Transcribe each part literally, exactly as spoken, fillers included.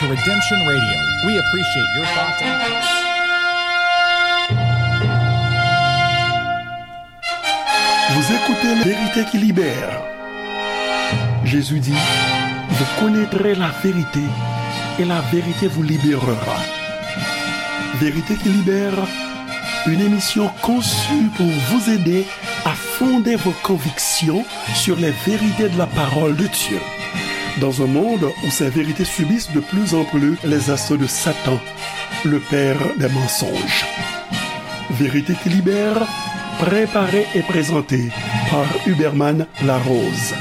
Redemption Radio. We appreciate your thoughts and Vous écoutez La Vérité qui libère. Jésus dit, vous connaîtrez la vérité et la vérité vous libérera. Vérité qui libère, une émission conçue pour vous aider à fonder vos convictions sur les vérités de la parole de Dieu. Dans un monde où ces vérités subissent de plus en plus les assauts de Satan, le père des mensonges. Vérité qui libère, préparée et présentée par Huberman Larose.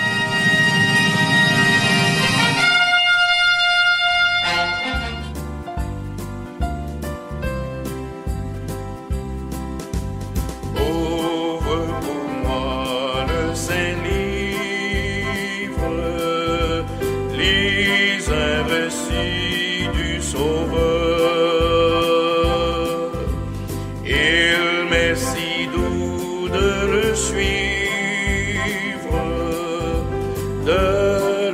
Ouvre pour moi le saint livre, les récits du Sauveur. Il m'est si doux de le suivre, de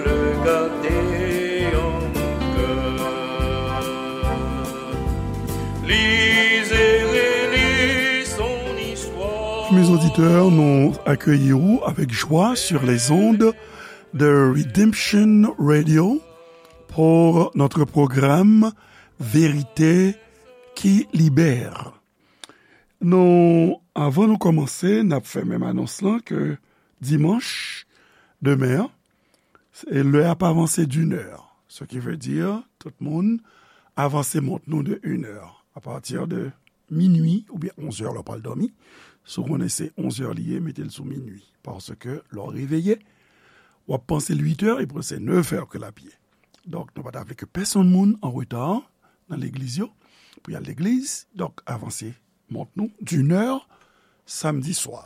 le garder en mon cœur. Lisez, relisez son histoire. Mes auditeurs, nous accueillons avec joie sur les ondes de Redemption Radio pour notre programme Vérité qui libère. Nou, avan nou kòmanse, n ap fè menm anons lan ke dimanch, demen an, e lè a ap avanse d'une heure. Ce qui veut dire, tout moun, avanse mont nou de une heure. A pati de minui oubyen onz è lè w pral dòmi, si w konnen se onz è li ye, mete l sou minui. Paske lè w reveye, w ap panse l uit è, epi se nèf è ke l ap ye. Donk, nou pa ta vle ke pèsonn moun an reta nan legliz yo, pou y al legliz. Donk, avanse mont nou d'une heure samdi swa,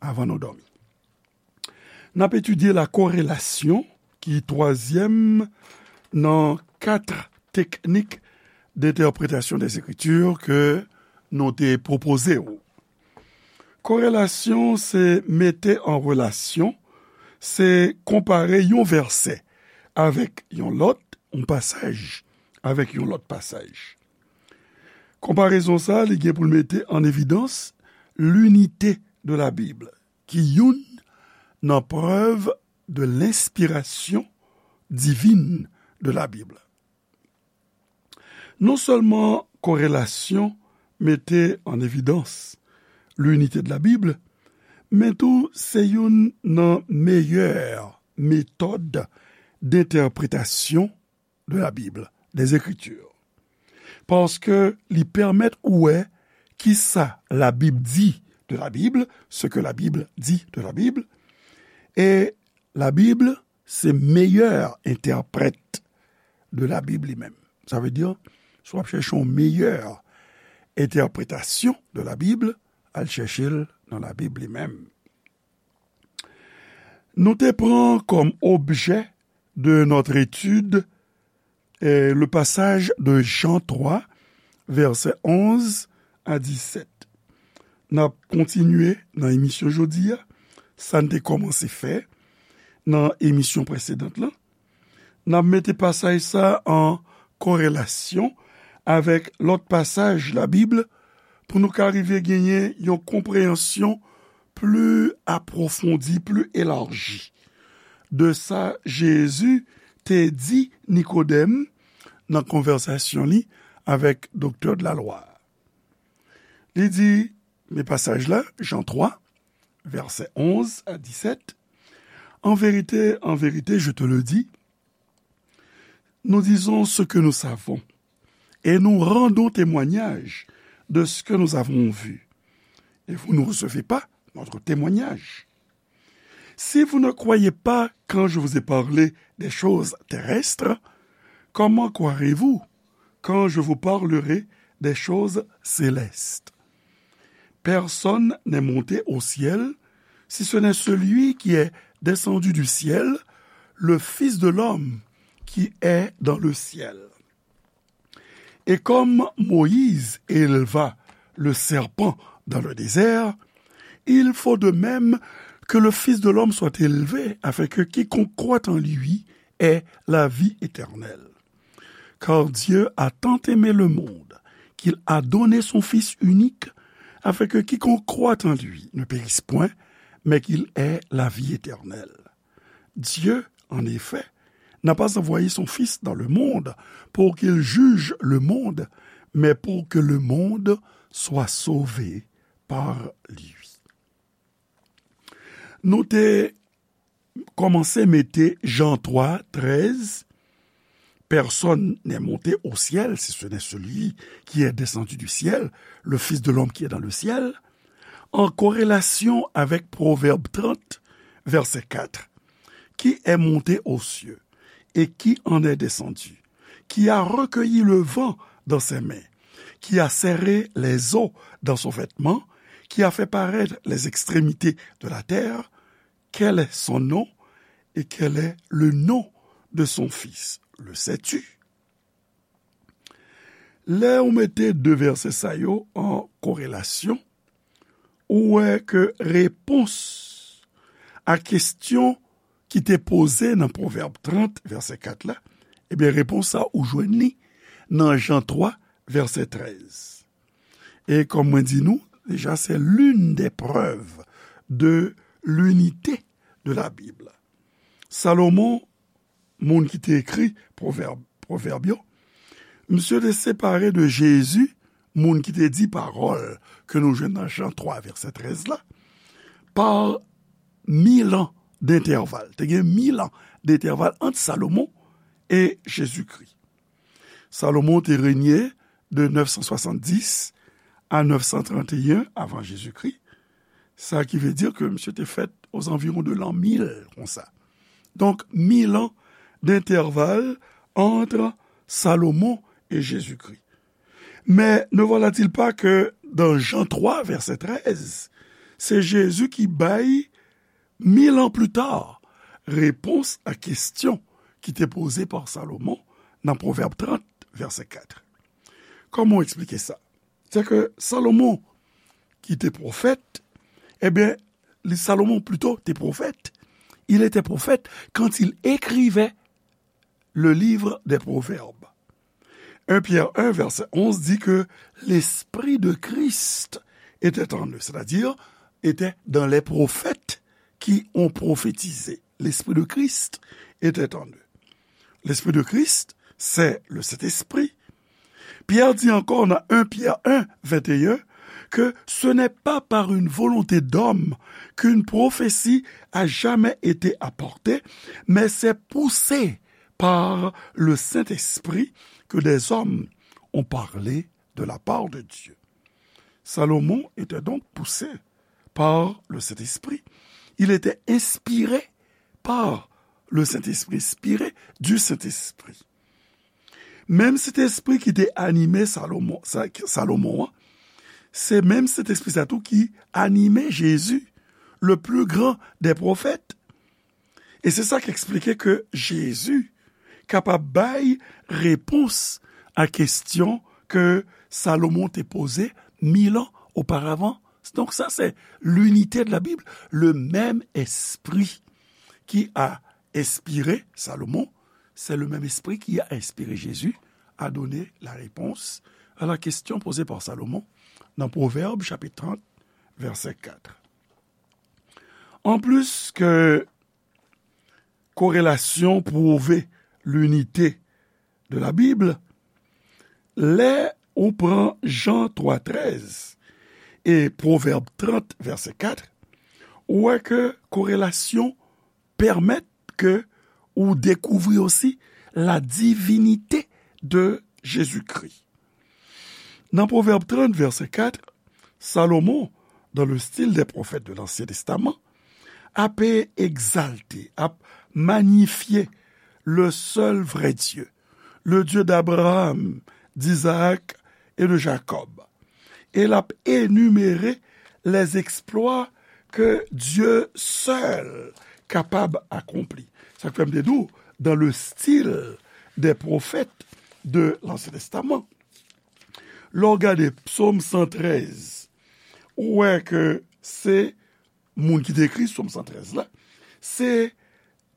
avan nou dòmi. N ap etidye la korelasyon, ki twazyèm nan kat teknik d'entèpretasyon dèzekritir ke nou te pwopoze w. Korelasyon se mete an relasyon, se konpare yon vèsè avèk yon lòt, yon pasaj avèk yon lòt pasaj. Konparezon sa a, li gen pou l mete an evidans linite de la Bible, ki youn nan prèv de lenspirasyon divin de la Bible. Non sèlman korelasyon mete an evidans linite de la Bible, men tou se youn nan meyè metòd d'entèpretasyon de la Bible, des Écritures. Paske li pèmèt ou wè kisa la Bib di de la Bible, ce que la Bible dit de la Bible, e la Bible se meyè entèprèt de la Bible li menm. Sa vle di, si w ap chèche yon meyè entèpretasyon de la Bible, al chèche l nan la Bible li menm. Nou te pran kòm objè de notre étude, eh, le passage de Jean trois, versets onze à dix-sept. N ap kontinye nan emisyon jodi a, sa n te kòmanse fè nan emisyon presedan lan. N ap mete pasaj sa an korelasyon avèk lòt pasaj Labib pou nou ka rive genyen yon konpreyansyon pli apwofondi, pli elaji de sa Jezi te di Nikodèm nan konvèsasyon li avèk doktè de la lwa. Li di, men pasaj la, Jan twa, vèsè onz a disèt, en vérité, en vérité, je te le dis, nous disons ce que nous savons, et nous rendons témoignage de ce que nous avons vu, et vous ne recevez pas notre témoignage. Si vous ne croyez pas quand je vous ai parlé des choses terrestres, comment croirez-vous quand je vous parlerai des choses célestes ? Personne n'est monté au ciel, si ce n'est celui qui est descendu du ciel, le Fils de l'homme qui est dans le ciel. Et comme Moïse éleva le serpent dans le désert, il faut de même que le Fils de l'homme soit élevé, afin que quiconque croit en lui ait la vie éternelle. Car Dieu a tant aimé le monde qu'il a donné son Fils unique, afin que quiconque croit en lui ne périsse point, mais qu'il ait la vie éternelle. Dieu, en effet, n'a pas envoyé son Fils dans le monde pour qu'il juge le monde, mais pour que le monde soit sauvé par lui. Nou te kòmanse mete Jan twa, trèz, personne n'est monté au ciel, si ce n'est celui qui est descendu du ciel, le Fils de l'homme qui est dans le ciel, an korelasyon avèk Pwovèb trant, vèsè kat, qui est monté aux cieux et qui en est descendu, qui a recueilli le vent dans ses mains, qui a serré les eaux dans son vêtement, qui a fait paraître les extrémités de la terre, quel est son nom et quel est le nom de son Fils? Le sais-tu? Lè ou mete de vèsè sa yo an korelasyon, ou wè ke repons a kesyon ki te poze nan Pwovèb trant, vèsè kat la, ebyen, repons sa ou jwenn li nan Jan twa, vèsè trèz. E kòm mwen di nou, deja, c'est l'une des preuves de l'unité de la Bible. Salomon, moun ki te ekri Pwovèb, Pwovèb yo, misye te separe de Jezi, moun ki te di pawòl ke nou jwenn nan Jan twa, vèsè trèz la, pa mil an dentèval. Te gen mil an dentèval ant Salomon e Jezikri. Salomon te renye de nèf san swasanndis a nèf san tranteyen avan Jezikri. Sa ki vle di ke misye te fèt ozanviwon de l'an mil, konsa. Donk, mil an dentèval ant Salomon e Jezikri. Mais ne voilà-t-il pas que dans Jean trois, verset treize, c'est Jésus qui bay, mil ans plus tard, repons a kesyon ki te poze pa Salomon nan Pwovèb trant, vèsè kat. Kòman w eksplike sa? Se ke Salomon, ki te pwofèt, ebyen, li, Salomon plito te pwofèt. Il était prophète quand il écrivait le livre des Proverbes. Un Pierre un, verset onze dit que l'Esprit de Christ était en eux, c'est-à-dire était dans les prophètes qui ont prophétisé. L'Esprit de Christ était en eux. L'Esprit de Christ, c'est le Saint-Esprit. Pierre dit encore dans un Pierre un, vingt et un, que ce n'est pas par une volonté d'homme qu'une prophétie a jamais été apportée, mais c'est poussé par le Saint-Esprit que des hommes ont parlé de la part de Dieu. Salomon était donc poussé par le Saint-Esprit. Il était inspiré par le Saint-Esprit, inspiré du Saint-Esprit. Menm Sentespri ki te anime Salomon, sa, Salomon an, se menm Sentespri sa tou ki anime Jezi, le plus grand des prophètes. E se sa k eksplike ke Jezi kapab bay repons a kesyon ke Salomon te poze mil an oparavan. Donk sa, se l'unité de la Bible, le même esprit qui a inspiré Salomon, c'est le même esprit qui a inspiré Jésus à donner la réponse à la question posée par Salomon dans Proverbes chapitre trente, verset quatre. Anplis ke korelasyon pwouve linite de la Bib, lè ou pran Jan twa trèz e Pwovèb trant, vèsè kat, ou wè ke korelasyon pèmèt ke ou dekouvri osi la divinite de Jezikri. Nan Pwovèb trant, vèsè kat, Salomon, dans le style des prophètes de l'Ancien Testament, ap egzalte, ap manyifye le seul vrai Dieu, le Dieu d'Abraham, d'Isaac et de Jacob. E l ap enimere les exploits que Dieu seul kapab akonpli. Sa k fè m te di w, dans le style des prophètes de l'Ancien Testament. Lè w gade Psaume cent treize, ou wè ke se moun ki te ekri Psaume cent treize la, se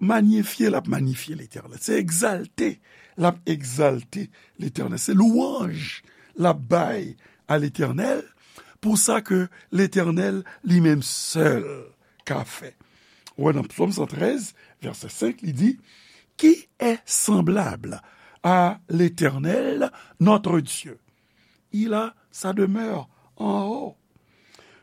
Manyifye l ap manyifye Letènèl. Se egzalte l ap egzalte Letènèl. Se lwanj l ap bay a Letènèl pou sa ke Letènèl li menm sèl ka fè. Ou wè nan Psaume cent treize, verset cinq, li di, Qui est semblable à l'Éternel, notre Dieu? Il a sa demeure en haut.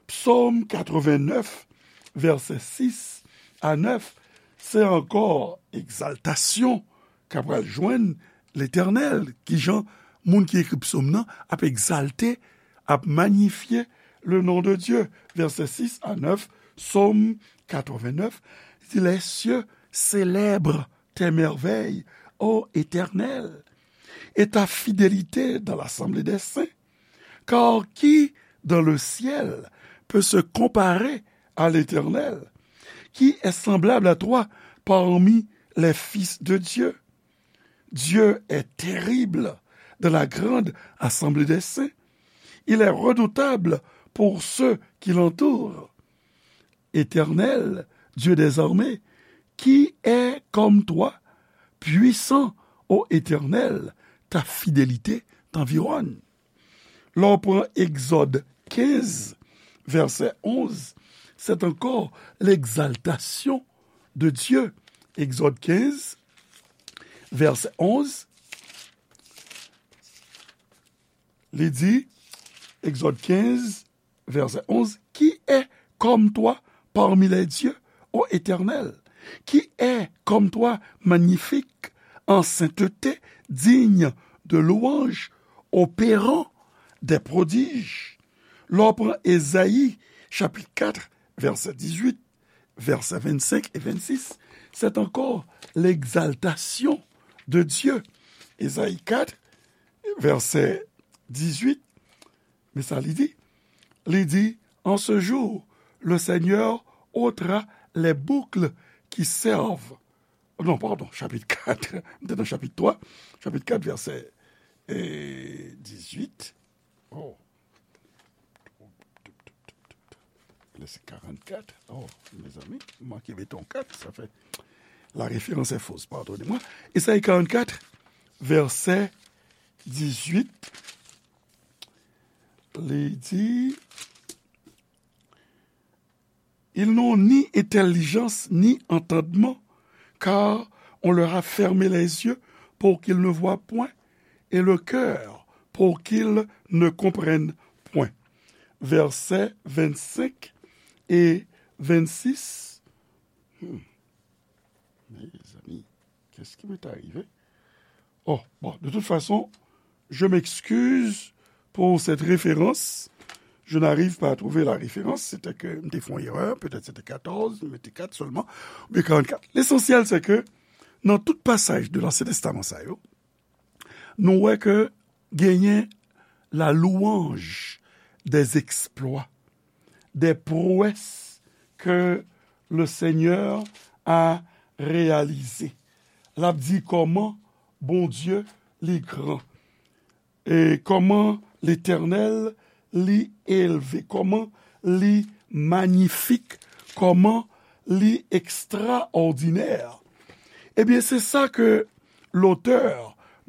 Psaume quatre-vingt-neuf, verset six à neuf, se ankò egzaltasyon k ap pral jwenn Letènèl. Kijan moun ki ekri psaume nan ap egzalte, ap manyifye le nom de Dieu. Verset six à neuf, Psaume quatre-vingt-neuf, di, Les cieux célèbrent tes merveilles, ô Éternel, et ta fidélité dans l'assemblée des saints. Car qui dans le ciel peut se comparer à l'Éternel? Qui est semblable à toi parmi les fils de Dieu? Dieu est terrible dans la grande assemblée des saints. Il est redoutable pour ceux qui l'entourent. Éternel, Dieu des armées, qui est comme toi, puissant, ô Éternel, ta fidélité t'environne. Lè w pran Egzòd kenz, vèsè onz, c'est encore l'exaltation de Dieu. Egzòd kenz, vèsè onz, li di, Egzòd kenz, vèsè onz, Qui est comme toi parmi les dieux, ô Éternel? Qui est comme toi magnifique en sainteté, digne de louange, opérant des prodiges? Lè w pran Ezayi, chapit kat, vèsè dizuit, vèsè vennsenk e vennsis, c'est encore l'exaltation de Dieu. Ezayi kat, vèsè dizuit, men sa li di, li di, En ce jour, le Seigneur ôtera les boucles qui servent. Non, pardon, chapit kat, m te nan chapit twa, chapit kat, vèsè, eh, dizuit. Oh. Lè se karannkat. Oh, mezanmi, m manke mete yon kat, sa fè la référence est fausse, pardonnez-moi. Ezayi karannkat, vèsè dizuit, li di, Ils n'ont ni intelligence ni entendement, car on leur a fermé les yeux pour qu'ils ne voient point, et le cœur pour qu'ils ne comprennent point. Vèsè vennsenk e vennsis. Hmm. Mezanmi, qu'est-ce qui m'est arrivé? Oh, bon, de toute façon, je m'excuse pour cette référence. Je n'arrive pas à trouver la référence. C'était que m te fè yon erè, peut-être c'était quatorze, m mete kat sèlman, oubyen karannkat. Lesansyèl, se ke nan tout pasaj de Lansyen Testaman sa yo, nou wè ke genyen la louange des exploits, des prouesses que le Seigneur a réalisées. L ap di kòman Bondye li gran, e kòman Letènèl li elve, kòman li manyifik, kòman li ekstraòdinè. Ebyen, se sa ke lotè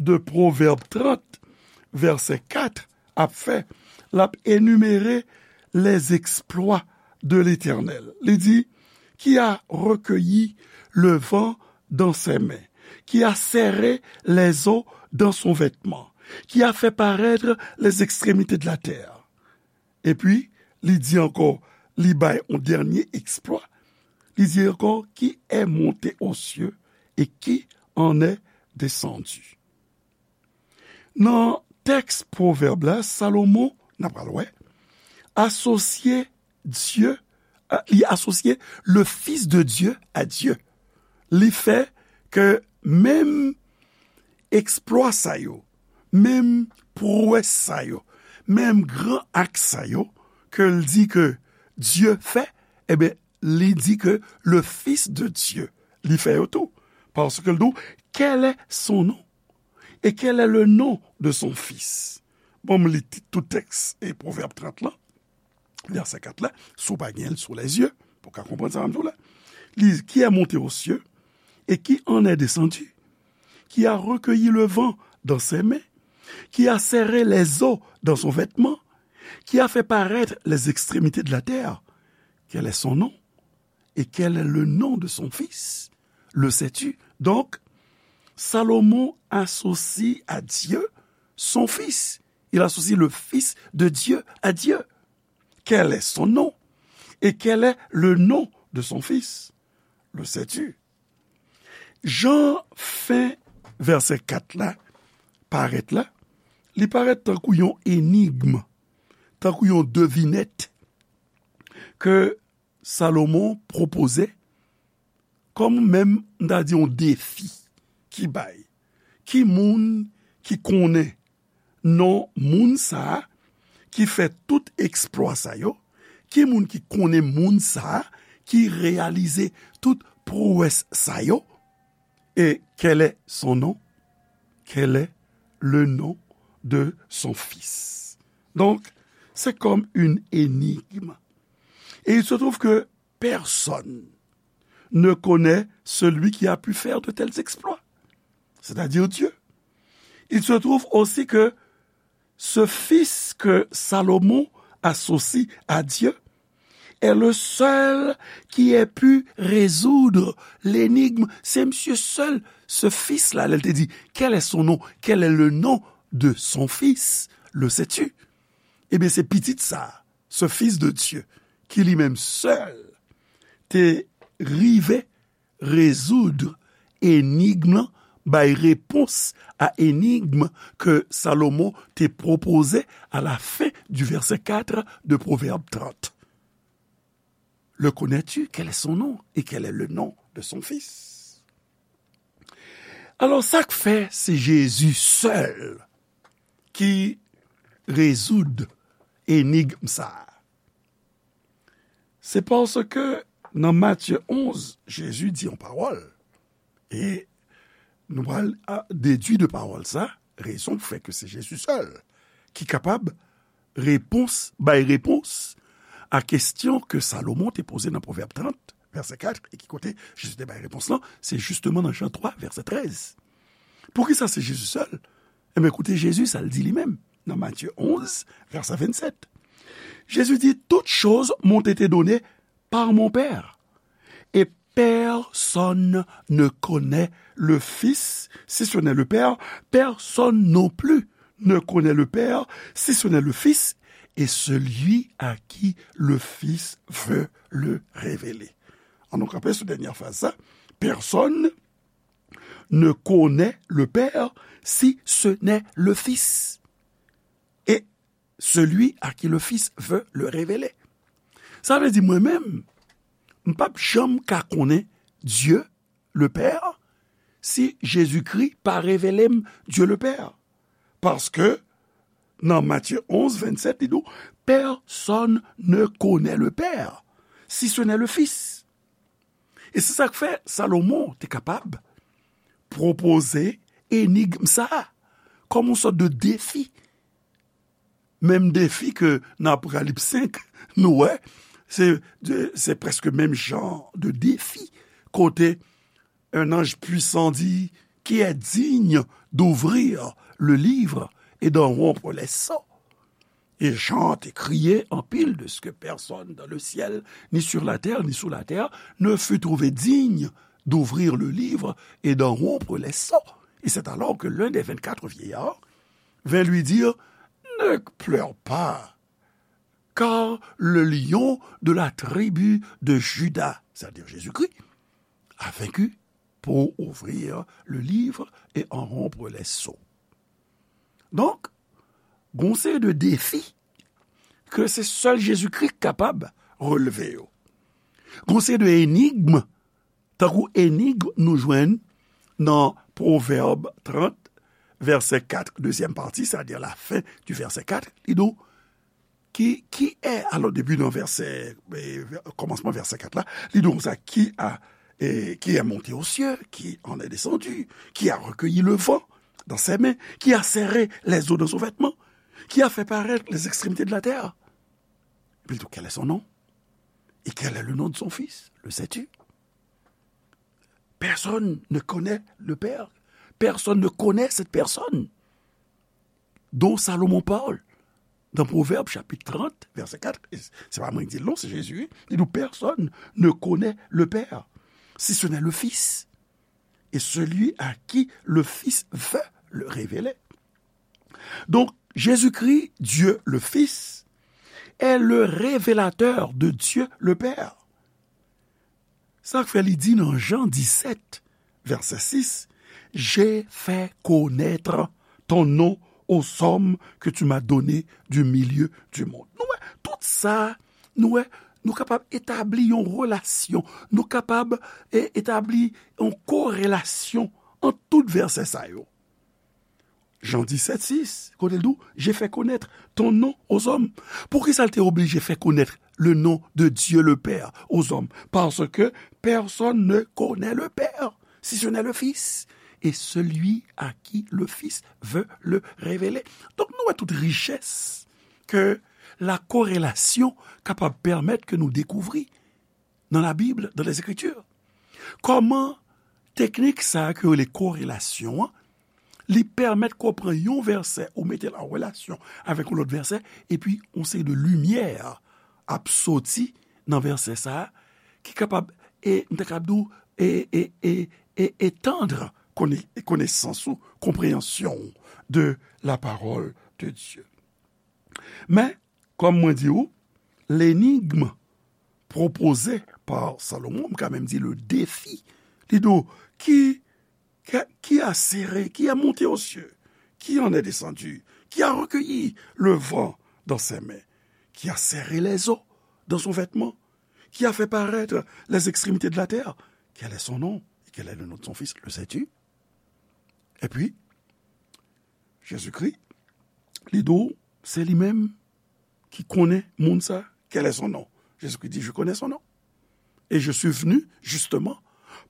de Pwovèb trant, vèsè kat, ap fè. L ap enimere les exploits de l'Éternel. Li di, Qui a recueilli le vent dans ses mains, qui a serré les eaux dans son vêtement, qui a fait paraître les extrémités de la terre. Epi, li di ankò, li bay yon dènye eksplwa. Li di ankò, Qui est monté aux cieux et qui en est descendu? Nan tèks Pwovèb la, Salomon, n a pral wè, asosye Dye, a, li asosye le Fils de Dieu à Dieu. Li fè ke menm eksplwa sa yo, menm pwowès sa yo, menm gran ak sa yo, ke l di ke Dye fè, ebyen, li di ke le Fils de Dieu, li fè yo tou. Paske l di w, Quel est son nom? Et quel est le nom de son fils? Bon, m li ti-, tout tèks e Pwovèb trant lan, vèsè kat la, si w pa gen l sou lèzye, pou w ka konprann sa m di w la. Li, Qui est monté aux cieux, et qui en est descendu, qui a recueilli le vent dans ses mains, qui a serré les eaux dans son vêtement, qui a fait paraître les extrémités de la terre. Quel est son nom? Et quel est le nom de son fils? Le sais-tu? Donc, Salomon associe à Dieu son fils. Il associe le fils de Dieu à Dieu. Quel est son nom? Et quel est le nom de son fils? Le sais-tu? Jan fen vèsè kat la parèt la, li parèt tankou yon enigm, tankou yon devinèt ke Salomon pwopoze kòm menm, m ta di, yon defi ki bay. Ki moun ki konnen non moun sa a ki fè tout eksplwa sa yo? Ki moun ki konnen moun sa a ki reyalize tout pwowès sa yo? Et quel est son nom? Quel est le nom de son fils? Donc, c'est comme une énigme. Et il se trouve que personne ne connaît celui qui a pu faire de tels exploits, c'est-à-dire Dieu. Il se trouve aussi que ce fils que Salomon associe à Dieu est le seul qui ait pu résoudre l'énigme. C'est monsieur seul, ce fils-là, lè l te di, quel est son nom? Quel est le nom de son fils? Le sais-tu? Ebyen, se pitit sa, ce fils de Dieu, ki li menm sèl te rive rezoud enigm lan, bay repons a enigm ke Salomon te pwopoze à la fin du verset quatre de Proverbe trente. Le connais-tu? Quel est son nom? Et quel est le nom de son fils? Alò, sa k fè se Jezi sèl ki rezoud enigm sa a? Se paske nan Matye onz, Jezi di yon pawòl. E nou pral a, dedui de pawòl sa, rezon k fè ke se Jezi sèl ki kapab repons, bay repons a kesyon ke Salomon te poze nan Pwovèb trant, vèsè kat, e ki kote Jezi te bay repons lan, se jisteman nan Jan twa, vèsè trèz. Poukisa se Jezi sèl? Enben, koute Jezi, sa l di li menm, nan Matye onz, vèsè vennsèt. Jezi di, toutes choses m'ont été données par mon Père. Et personne ne connaît le Fils, si ce n'est le Père. Personne non plus ne connaît le Père, si ce n'est le Fils, et celui à qui le Fils veut le révéler. An nou kanpe sou dènyè fraz sa. Personne ne connaît le Père si ce n'est le Fils et celui à qui le Fils veut le révéler. Sa vle di mwen menm, m p ap janm ka konnen Dye le Pè si Jezikri pa revele m Dye le Pè. Paske nan Matye onz, vennsèt, li di w, personne ne connaît le Père si ce n'est le Fils. E se sa k fè Salomon te kapab pwopoze enigm sa a kòm yon sòt de defi. Menm defi ke nan Apokalips senk, nou wè, se, se prèske menm jan de defi, kote un ange puissant dit, qui est digne d'ouvrir le livre et d'en rompre les sceaux? Et Jean te crié anpil de ce que personne dans le ciel, ni sur la terre, ni sous la terre, ne fut trouvé digne d'ouvrir le livre et d'en rompre les sceaux. Et c'est alors que l'un des vingt-quatre vieillards vint lui dire, ne pleure pas, car le lion de la tribu de Juda, c'est-à-dire Jésus-Christ, a vaincu pour ouvrir le livre et en rompre les sceaux. Donk, gon seri de defi ke se sèl Jezikri k kapab relve yo. Gon seri de enigm, tankou enigm nou jwenn nan Pwovèb trant, vèsè kat, dezyèm pati, sètadi lafen di vèsè kat, li di w, qui, qui est, alors, depi nan vèsè, eh, kòmansman vèsè kat la, li di w konsa, qui a, eh, qui est monté aux cieux, qui en est descendu, qui a recueilli le vent dans ses mains, qui a serré les eaux dans son vêtement, qui a fait paraître les extrémités de la terre. Epi l di w, quel est son nom? Et quel est le nom de son fils? Le sais-tu? Personne ne connaît le Père. Personne ne connaît cette personne dont Salomon parle dans Proverbes chapitre trente, verset quatre. Se pa mwen ki di l non, se Jezi. Li di, personne ne connaît le Père, si ce n'est le Fils, et celui à qui le Fils veut le révéler. Donc, Jésus-Christ, Dieu le Fils, est le révélateur de Dieu le Père. Sa k fè li di nan Jan disèt, vèsè sis, j'ai fait connaître ton nom aux hommes que tu m'as donnés du milieu du monde. Nou wè, tout sa, nou wè, nou kapab etabli yon relasyon, nou kapab e, etabli yon korelasyon ant tout vèsè sa yo. Jan disèt sis, kote l di w, j'ai fait connaître ton nom aux hommes. Poukisa l te oblije fè konèt le nom de Dieu le Père aux hommes? Parce que personne ne connaît le Père, si ce n'est le Fils, et celui à qui le Fils veut le révéler. Donk, nou wè tout richès ke la korelasyon kapab pèmèt ke nou dekouvri nan la Bib, dans les Écritures. Kòman teknik sa a ke yo rele korelasyon an, li pèmèt ke w pran yon vèsè, ou mete l an relasyon avèk yon lòt vèsè, epi yon seri de limyè ap soti nan vèsè sa a, ki kapab, e, m ta kapab di w, e, e, e, e, etandre kone-, konesans ou, konpreyansyon w de la parole de Dieu. Men, kòm mwen di w, l'énigme proposée par Salomon, m ka menm di le défi, li di w, qui, qui, qui a serré, qui a monté aux cieux, qui en est descendu, qui a recueilli le vent dans ses mains, qui a serré les eaux dans son vêtement, qui a fait paraître les extrémités de la terre, quel est son nom et quel est le nom de son fils, le sais-tu? Epi, Jezikri, li di w, se li menm ki konnen moun sa, quel est son nom? Jezikri di, je connais son nom. Et je suis venu justement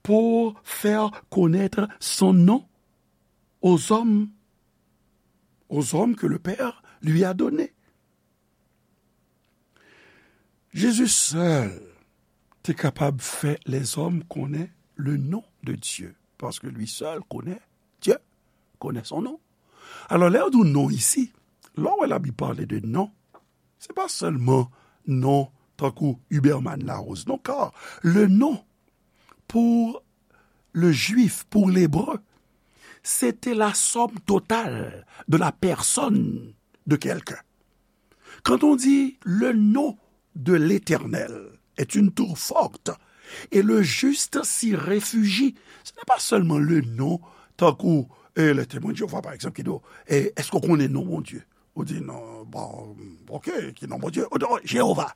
pour faire connaître son nom aux hommes, aux hommes que le Père lui a donnés. Jezi sèl te kapab fè lèzòm konnen le nom de Dieu, paske li sèl konnen Dieu, connaît son nom. Alò, lè yo di w non isi, lè w wè Labib pale de non, se pa sèlman non tankou Huberman Larose, non, car le nom pour le juif, pour l'hébreu, c'était la somme totale de la personne de quelqu'un. Quand on dit le nom de l'Éternel est une tour forte et le juste s'y réfugie, ce n'est pas seulement le nom, tankou, eh, le Témoin de Jéhovah, par exemple, ki di w, eh, èske w konnen non Bondye? Ou di, non, bon, ok, ki non Bondye? Ou di, oh, Jewova.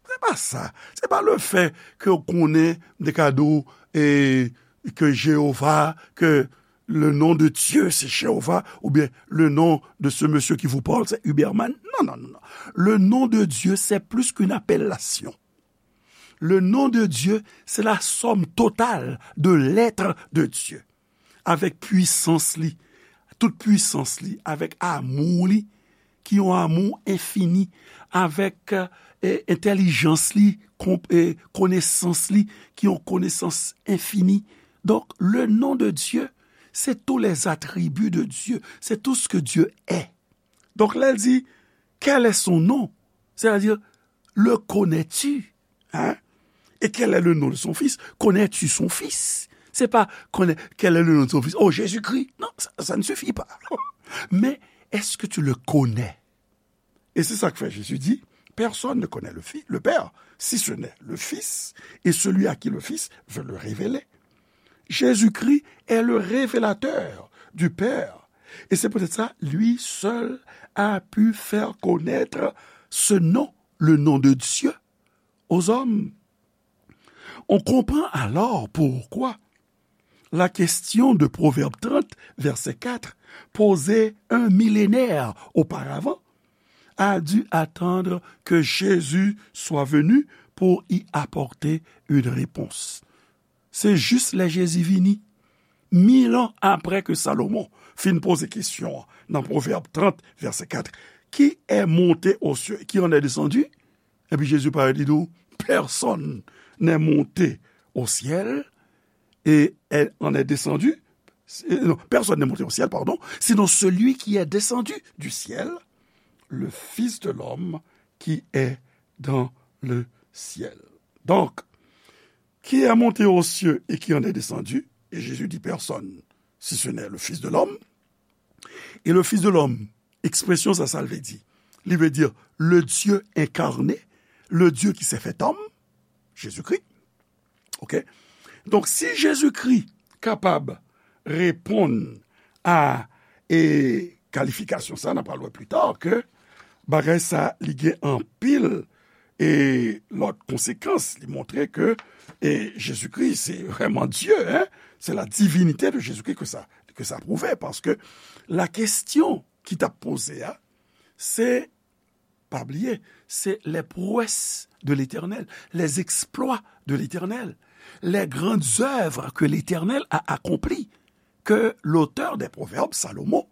Se pa sa. Se pa le fait ke w konnen de kado, eh, ke Jewova, ke le nom de Dieu, c'est Jéhovah, ou bien le nom de ce monsieur qui vous parle, c'est Huberman. Non, non, non, non. Le nom de Dieu, c'est plus qu'une appellation. Le nom de Dieu, c'est la somme totale de l'être de Dieu. Avèk pwisans li, tout pwisans li, avèk amou li, ki yon amou enfini, avèk, eh, entèlijans li, kon-, eh, konesans li, ki yon konesans enfini. Donc, le nom de Dieu, c'est tous les attributs de Dieu, c'est tout ce que Dieu est. Donc, lè l di, quel est son nom? C'est-à-dire, le connais-tu? Hein? Et quel est le nom de son fils? Connais-tu son fils? C'est pas connais, quel est le nom de son fils? Oh, Jésus-Christ. Non, ça, ça ne suffit pas. Mais est-ce que tu le connais? Et c'est ça que fait Jésus dit, personne ne connaît le Fils, le Père, si ce n'est le Fils, et celui à qui le Fils veut le révéler. Jésus-Christ est le révélateur du Père. Et c'est peut-être ça, lui seul a pu faire connaître ce nom, le nom de Dieu, aux hommes. On comprend alors pourquoi la question de Proverbe trente, verset quatre, posée un millénaire auparavant, a dû attendre que Jésus soit venu pour y apporter une réponse. Se jis lè Jezi vini, mil an apre ke Salomon fin poze kesyon an nan Pwovèb trant, vèsè kat, qui est monté aux cieux, qui en est descendu? Epi Jezi parèt, li di w, personne n'est monté au ciel, et est- en est descendu, euh, non, personne n'est monté au ciel, pardon, sinon celui qui est descendu du ciel, le Fils de l'homme qui est dans le ciel. Donc, qui est monté aux cieux et qui en est descendu, et Jésus dit personne, si ce n'est le Fils de l'homme. Et le Fils de l'homme, ekspresyon sa, sa l vle di? Li vle di le Dieu incarné, le Dieu qui s'est fait homme, Jezikri. Ok? Donk, si Jezikri kapab reponn a e kalifikasyon sa, n ap pral wè pli ta ke bagay sa, li gen anpil e lòt konsekans. Li montre ke e Jezikri, se vrèman Dye, hein? C'est la divinité de Jésus-Christ que ça, que ça prouve, paske la kesyon ki t ap poze a, se, pa bliye, se les prouesses de l'Éternel, les exploits de l'Éternel, les grandes œuvres que l'Éternel a accomplies, ke lotè dè Pwovèb, Salomo,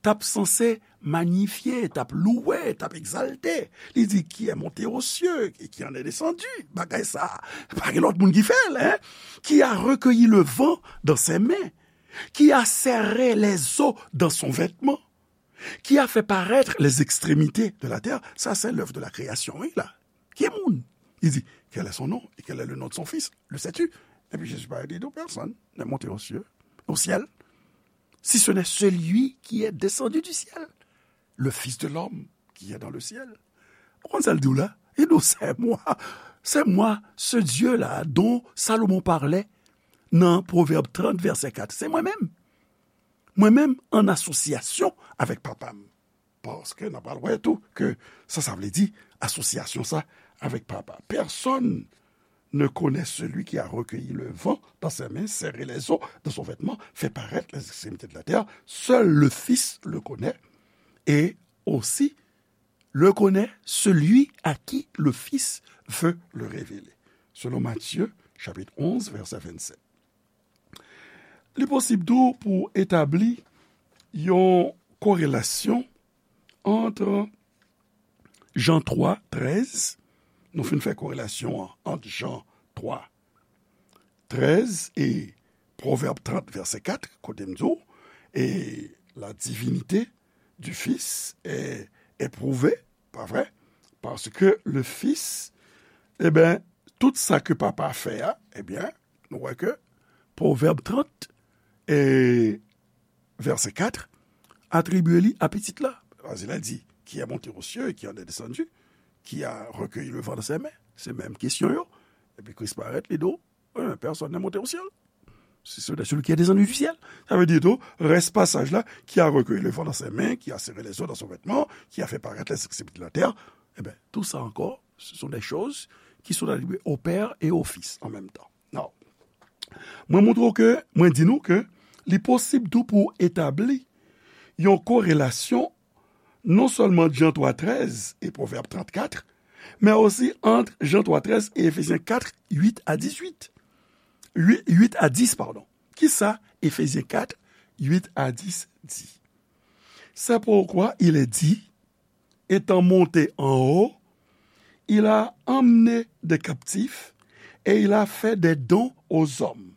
t ap sanse manyifye, t ap louwe, t ap egzalte. Li di, qui est monté aux cieux et qui en est descendu. Bagay sa, pa gen lòt moun ki fè l, hein? Qui a recueilli le vent dans ses mains, qui a serré les eaux dans son vêtement, qui a fait paraître les extrémités de la terre. Ça, c'est l'œuvre de la création, wi, la. Ki moun? Li di, quel est son nom et quel est le nom de son fils? Le sais-tu? Epi Jezi parèt, li di, personne n'est monté aux cieux, au ciel, si ce n'est celui qui est descendu du ciel, le Fils de l'homme qui est dans le ciel. Ou konn sa l di w la? Li di w, c'est moi, c'est moi, ce Dieu-là dont Salomon parlait nan Pwovèb trant, vèsè kat. Se mwen menm. Mwen menm, an asosyasyon avèk Papa m. Paske n ap pral wè tou ke sa, sa vle di asosyasyon sa avèk Papa. Personne ne connaît celui qui a recueilli le vent dans ses mains, serré les eaux dans son vêtement, fait paraître les extrémités de la terre. Seul le Fils le connaît, et aussi le connaît celui à qui le Fils veut le révéler. Selon Matthieu, chapitre onze, verset vingt-sept. Li posib tou pou etabli yon korelasyon ant Jan twa, trèz, nou fin fè korelasyon an ant Jan twa, trèz e Pwovèb trant, vèsè kat, kote m di w, et la divinité du Fils est, est prouvée, pa vre? Paske le Fils, e ben, tout sa ke Papa a fè a, e ben, nou wè ke Pwovèb trant, e vèsè kat, atribye li a Pitit la. Paske la di, qui est monté aux cieux et qui en est descendu, qui a recueilli le vent dans ses mains. Se menm kesyon yo. Epi Kris parèt, li di w, euh, personne n'est monté au ciel, si ce n'est celui qui est descendu du ciel. Sa vle di tou, rès pasaj la, qui a recueilli le vent dans ses mains, qui a serré les eaux dans son vêtement, qui a fait paraître les extrémités de la terre. E ben, tout ça encore, ce sont des choses qui sont attribuées au Père et au Fils en même temps. Non. Mwen montre w ke, mwen di nou ke li posib tou pou etabli yon korelasyon non sèlman Jan twa trèz e Pwovèb trant kat, men osi ant Jan twa trèz e Efezyen kat, uit a dizuit. Uit, uit a dis, padon. Kisa Efezyen kat, uit a dis di? C'est pourquoi il est dit, étant monté en haut, il a emmené des captifs et il a fait des dons aux hommes.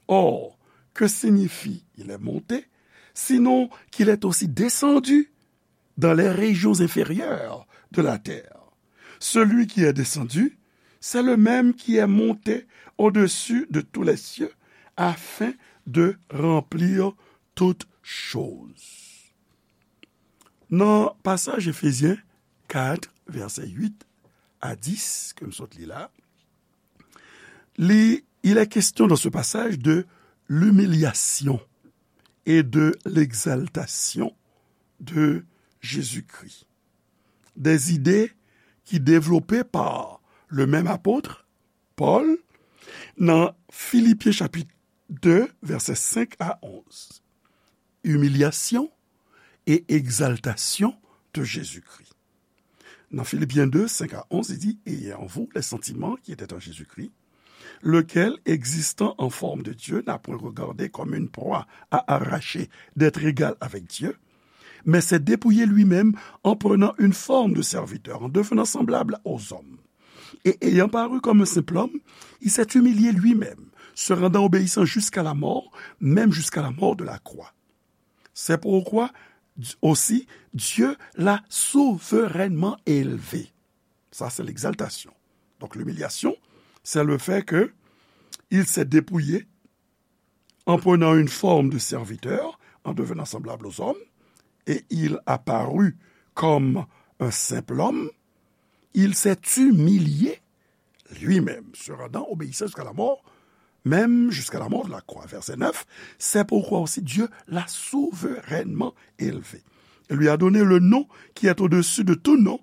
Or, que signifie il est monté, sinon qu'il est aussi descendu dans les régions inférieures de la terre? Celui qui est descendu, c'est le même qui est monté au-dessus de tous les cieux, afin de remplir toutes choses. Nan pasaj Efezyen kat, vèsè uit a dis, ke m sot li la, li, il est question dans ce passage de l'humiliation et de l'exaltation de Jésus-Christ. Des idées qui développées par le même apôtre, Paul, nan Filipyen chapit de, vèsè senk a onz. Humiliation et exaltation de Jésus-Christ. Dans Philippiens deux, cinq à onze, il dit, ayez en vous les sentiments qui étaient en Jésus-Christ, lequel, existant en forme de Dieu, n'a point regardé comme une proie à arracher d'être égal avec Dieu, mais s'est dépouillé lui-même en prenant une forme de serviteur, en devenant semblable aux hommes. Et ayant paru comme un simple homme, il s'est humilié lui-même, se rendant obéissant jusqu'à la mort, même jusqu'à la mort de la croix. C'est pourquoi aussi Dieu l'a souverainement élevé. Ça, c'est l'exaltation. Donc, l'humiliation, c'est le fait que il s'est dépouillé en prenant une forme de serviteur, en devenant semblable aux hommes, et il a paru comme un simple homme, il s'est humilié lui-même, se rendant obéissant jusqu'à la mort, même jusqu'à la mort de la croix. Verset neuf, c'est pourquoi aussi Dieu l'a souverainement élevé et lui a donné le nom qui est au-dessus de tout nom,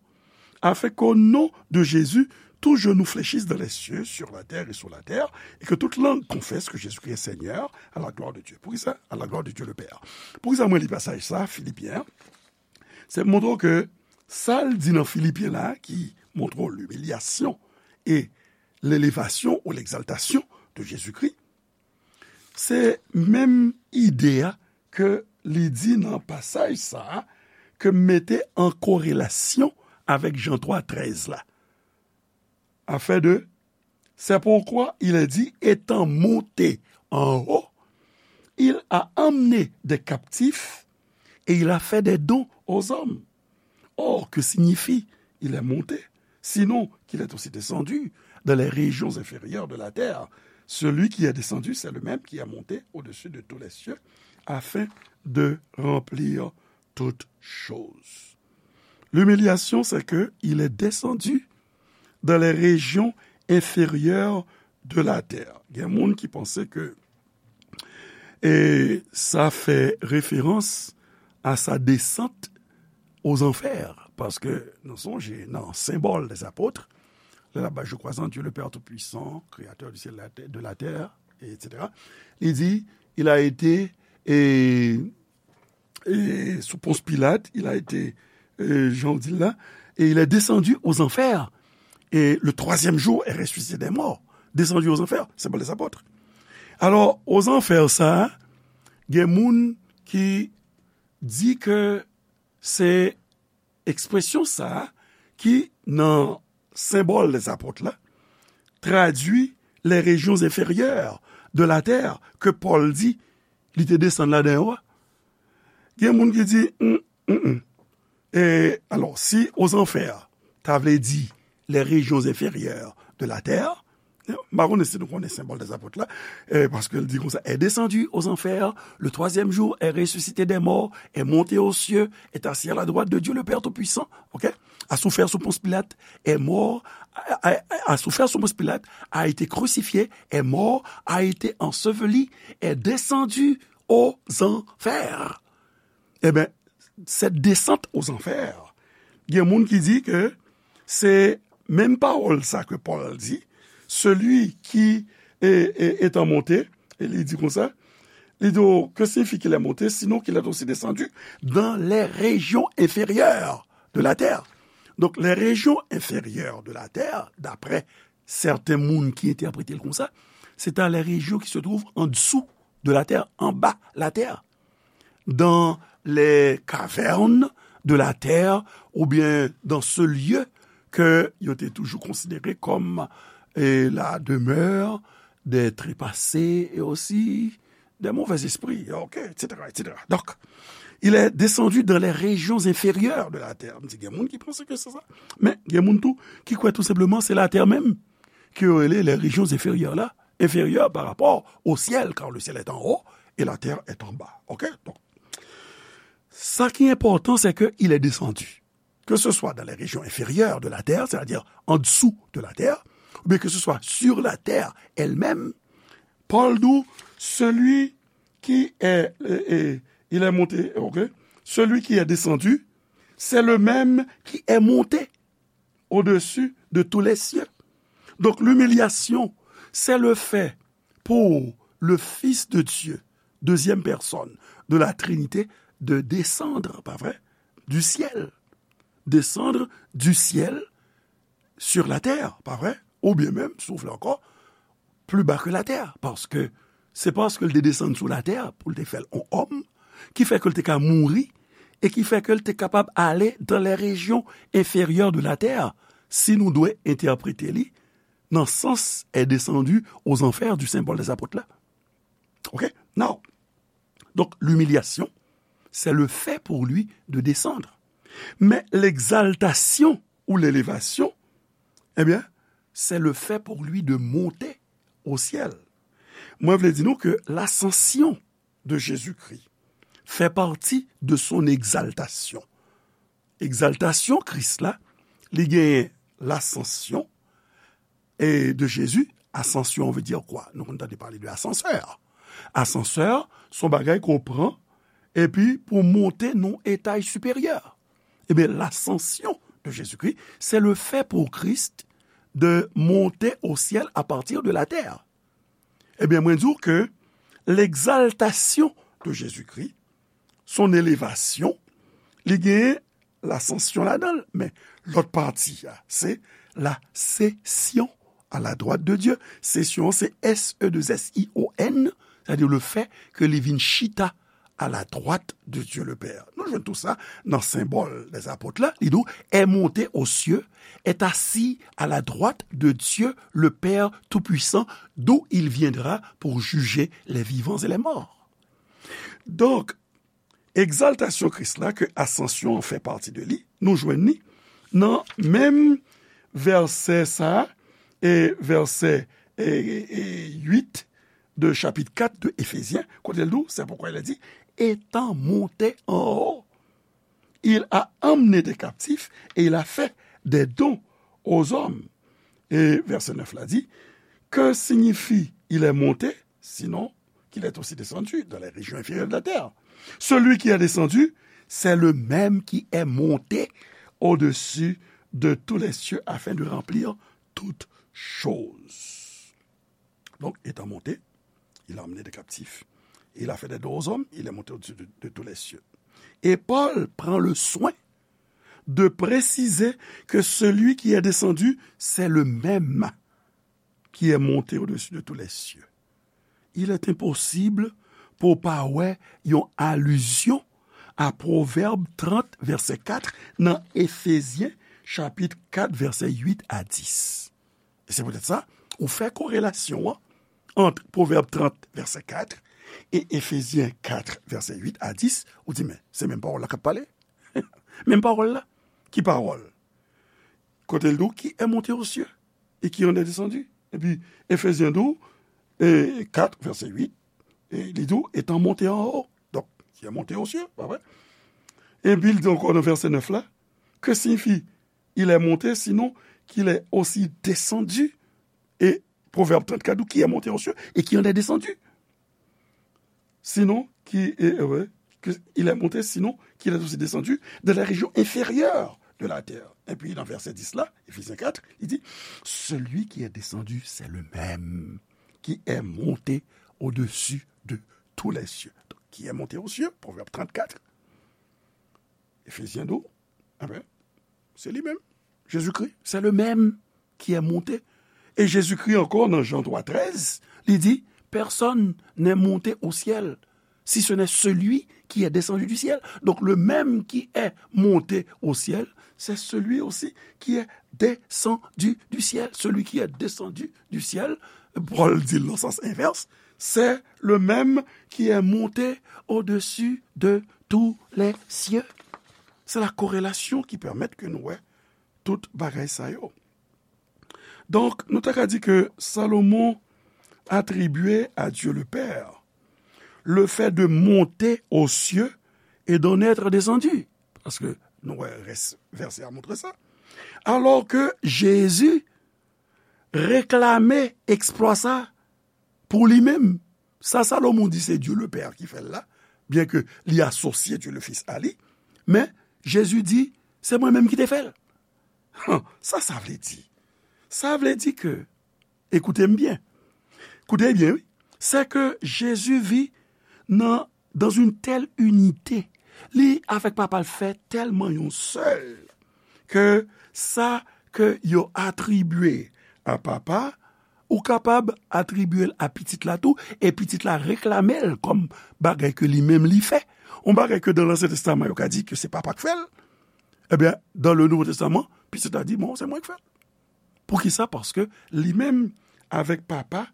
afin qu'au nom de Jésus, tout genou fléchisse dans les cieux, sur la terre et sous la terre, et que toute langue confesse que Jésus-Christ est Seigneur, à la gloire de Dieu. Poukisa? À la gloire de Dieu le Père. Poukisa mwen li pasaj sa, Filipyen an? Se pou montre w ke sa l di nan Filipyen la, ki montre w l'humiliation et l'élévation ou l'exaltation de Jésus-Christ, se menm ide a ke li di nan pasaj sa a, ke m mete an korelasyon avèk Jan twa trèz la. Afin de, c'est pourquoi il est dit, étant monté en haut, il a emmené des captifs et il a fait des dons aux hommes. Or, que signifie il est monté, sinon qu'il est aussi descendu dans les régions inférieures de la terre? Celui qui est descendu, c'est le même qui est monté au-dessus de tous les cieux, afin de remplir toutes choses. L'humiliation, c'est que il est descendu dans les régions inférieures de la terre. Gen moun ki panse ke, e, sa fè referans a sa desant aux enfers, paske nou sonje nan Symbole des Apôtres, lè l ap bay je crois en Dieu le Père Tout-Puissant, Créateur du ciel et de la terre, et cetera. Li di, il a été, e, e, sous Ponce Pilate, il a été, e, jan w di l la, et il est descendu aux enfers, et le troisième jour est ressuscité des morts. Descendu aux enfers, Symbole des Apôtres. Alò, aux enfers sa, gen moun ki di ke se ekspresyon sa ki nan Symbole des Apôtres la, tradui les régions inférieures de la terre ke Pòl di li te desann ladan yo a. Gen moun ki di, mm, mm, mm. E, alò, si aux enfers ta vle di les régions inférieures de la terre, m pa konnen si nou konnen Symbole des Apôtres la, e, paske l di konsa, est descendu aux enfers, le troisième jour est ressuscité des morts, est monté aux cieux, est assis à la droite de Dieu le Père Tout-Puissant, ok? A souffert sous Ponce Pilate, est mort, a, a, a souffert sous Ponce Pilate, a été crucifié, est mort, a été enseveli, est descendu aux enfers. Ebyen, cette descente aux enfers, gen moun ki di ke se menm pawòl sa ke Pòl di, celui qui est, est, étant monté, e li di konsa, li di, oh, que signifie qu'il est monté, sinon qu'il est aussi descendu dans les régions inférieures de la terre. Donc, les régions inférieures de la terre, d'après sèten moun ki entèprete l konsa, se ta les régions qui se trouvent en dessous de la terre, anba latè, dans les cavernes de la terre, oubyen dans ce lieu ke yo te toujou konsidere kòm, e, la demeure des trépassés et aussi des mauvais esprits, ok, et cetera, et cetera. Donc, il est descendu dans les régions inférieures de la terre. M di, gen moun ki panse ke se sa. Men, gen moun tou ki kwè tou senpleman se latè menm ke yo rele les régions inférieures la, inférieures par rapport au ciel, car le ciel est en haut et la terre est en bas. Ok? Donk, sa ki enpòtan, se ke il est descendu. Que ce soit dans les régions inférieures de la terre, c'est-à-dire en dessous de la terre, ou bien que ce soit sur la terre elle-même, Pòl di w, celui qui est, euh, euh, il est monté, ok? Celui qui est descendu, c'est le même qui est monté au-dessus de tous les cieux. Donc, l'humiliation, c'est le fait pour le Fils de Dieu, deuxième personne de la Trinité, de descendre, pa vre? Du ciel. Descendre du ciel sur la terre, pa vre? Oubyen menm, si w vle ankò, pli ba ke latè, paske se paske l te desann sou latè pou l te fè l on òm, ki fè ke l te ka mouri, e ki fè ke l te kapab ale dans les régions inférieures de la terre, si nou dwe entèprete li nan sans est descendu aux enfers du symbole des apôtres là. Ok? Now, donc, l'humiliation, c'est le fait pour lui de descendre. Mais l'exaltation ou l'élévation, eh bien, c'est le fait pour lui de monter au ciel. Mwen vle di nou ke l'ascension de Jésus-Christ fait partie de son exaltation. Egzaltasyon Kris la, li genyen lasansyon e de Jezi. Asansyon vle di kwa? Nou konn tande pale de asansè. Asansè, se yon bagay ke w pran epi pou w monte nan yon etaj siperyè. Ebyen, l'ascension de Jésus-Christ, c'est le fait pour Christ de monter au ciel à partir de la terre. Ebyen, mwen di w ke l'exaltation de Jésus-Christ, son élévation, li genyen lasansyon ladan l, men lòt pati a, se la session à la droite de Dieu. Sesyon, se S E deux S I O N, c'est-à-dire le fait que li vin chita à la droite de Dieu le Père. Nou jwenn tou sa nan symbole des apôtres la, li di w, est monté aux cieux, est assis à la droite de Dieu le Père Tout-Puissant, d'où il viendra pour juger les vivants et les morts. Donk, egzaltasyon Kris la, ke asansyon an fè pati de li, nou jwenn li nan menm vèsè sa a, e vèsè, e, e, uit de chapit kat de Efezyen, kote l di w, c'est pourquoi il a dit, étant monté en haut, il a emmené des captifs et il a fait des dons aux hommes. E vèsè nèf la di, que signifie il est monté, sinon qu'il est aussi descendu dans les régions inférieures de la terre. Celui qui est descendu, c'est le même qui est monté au-dessus de tous les cieux afin de remplir toutes choses. Donc, étant monté, il a emmené des captifs. Il a fait des dons aux hommes, il est monté au-dessus de, de tous les cieux. Et Paul prend le soin de préciser que celui qui est descendu, c'est le même qui est monté au-dessus de tous les cieux. Il est impossible pou w pa wè yon alizyon a Pwovèb trant, vèsè kat, nan Efezyen, chapit kat, vèsè uit a dis. E se poutèt sa, ou fè korelasyon an ant Pwovèb trant, vèsè kat, e Efezyen kat, vèsè uit a dis, ou di, men, se menm pawòl la k ap pale. Menm pawòl la. Ki pawòl? Kote l di w, qui est monté aux cieux et qui en est descendu. Epi, Efezyen di w, e, kat, vèsè uit, e li di w, étant monté en haut. Donk, qui est monté aux cieux, pa vre? Epi, li di ankò nan vèsè nèf la, que signifie il est monté, sinon qu'il est aussi descendu. E Pwovèb trant kat di w, qui est monté aux cieux et qui en est descendu. Sinon, qui est, euh, ouais, que il est monté, sinon qu'il est aussi descendu de la région inférieure de la terre. Epi nan vèsè dis la, Efezyen kat, li di, celui qui est descendu, c'est le même qui est monté au-dessus de tous les cieux. Donc, qui est monté aux cieux, Pwovèb trant kat, Efezyen di w, enben, se li menm. Jezikri, c'est le même qui est monté. E Jezikri ankò, nan Jan twa trèz, li di, personne n'est monté au ciel, si ce n'est celui qui est descendu du ciel. Donc, le même qui est monté au ciel, c'est celui aussi qui est descendu du ciel. Celui qui est descendu du ciel, Pòl di l nan sans envès, c'est le même qui est monté au-dessus de tous les cieux. Se la korelasyon ki pèmèt ke nou wè tout bagay sa yo. Donk, nou ta ka di ke Salomon atribye à Dieu le Père le fait de monter aux cieux et d'en être descendu. Paske nou wè rès vèsè a montre sa. Alò ke Jezi reklame eksplwa sa pou li menm. Sa Salomon di se Dye le Pè ki fè l la, byenke li asosye Dye le Fis a li, men Jezi di, se mwen menm ki te fè l. Sa sa vle di? Sa vle di ke, ekoute m byen, koute byen, wi, se ke Jezi vi nan dans une telle unité. Li avèk Papa l fè tèlman yon sèl ke sa ke yo atribye a Papa, ou kapab atribye l a Pitit la tou, e Pitit la reklame l kòm bagay ke li menm li fè. Yon bagay ke dans l'Ancien Testament yo ka di ke se Papa k fè l, ebyen, dans le Nouveau Testament, Pitit la di, bon, se mwen k fè l. Poukisa? Paske li menm avèk Papa,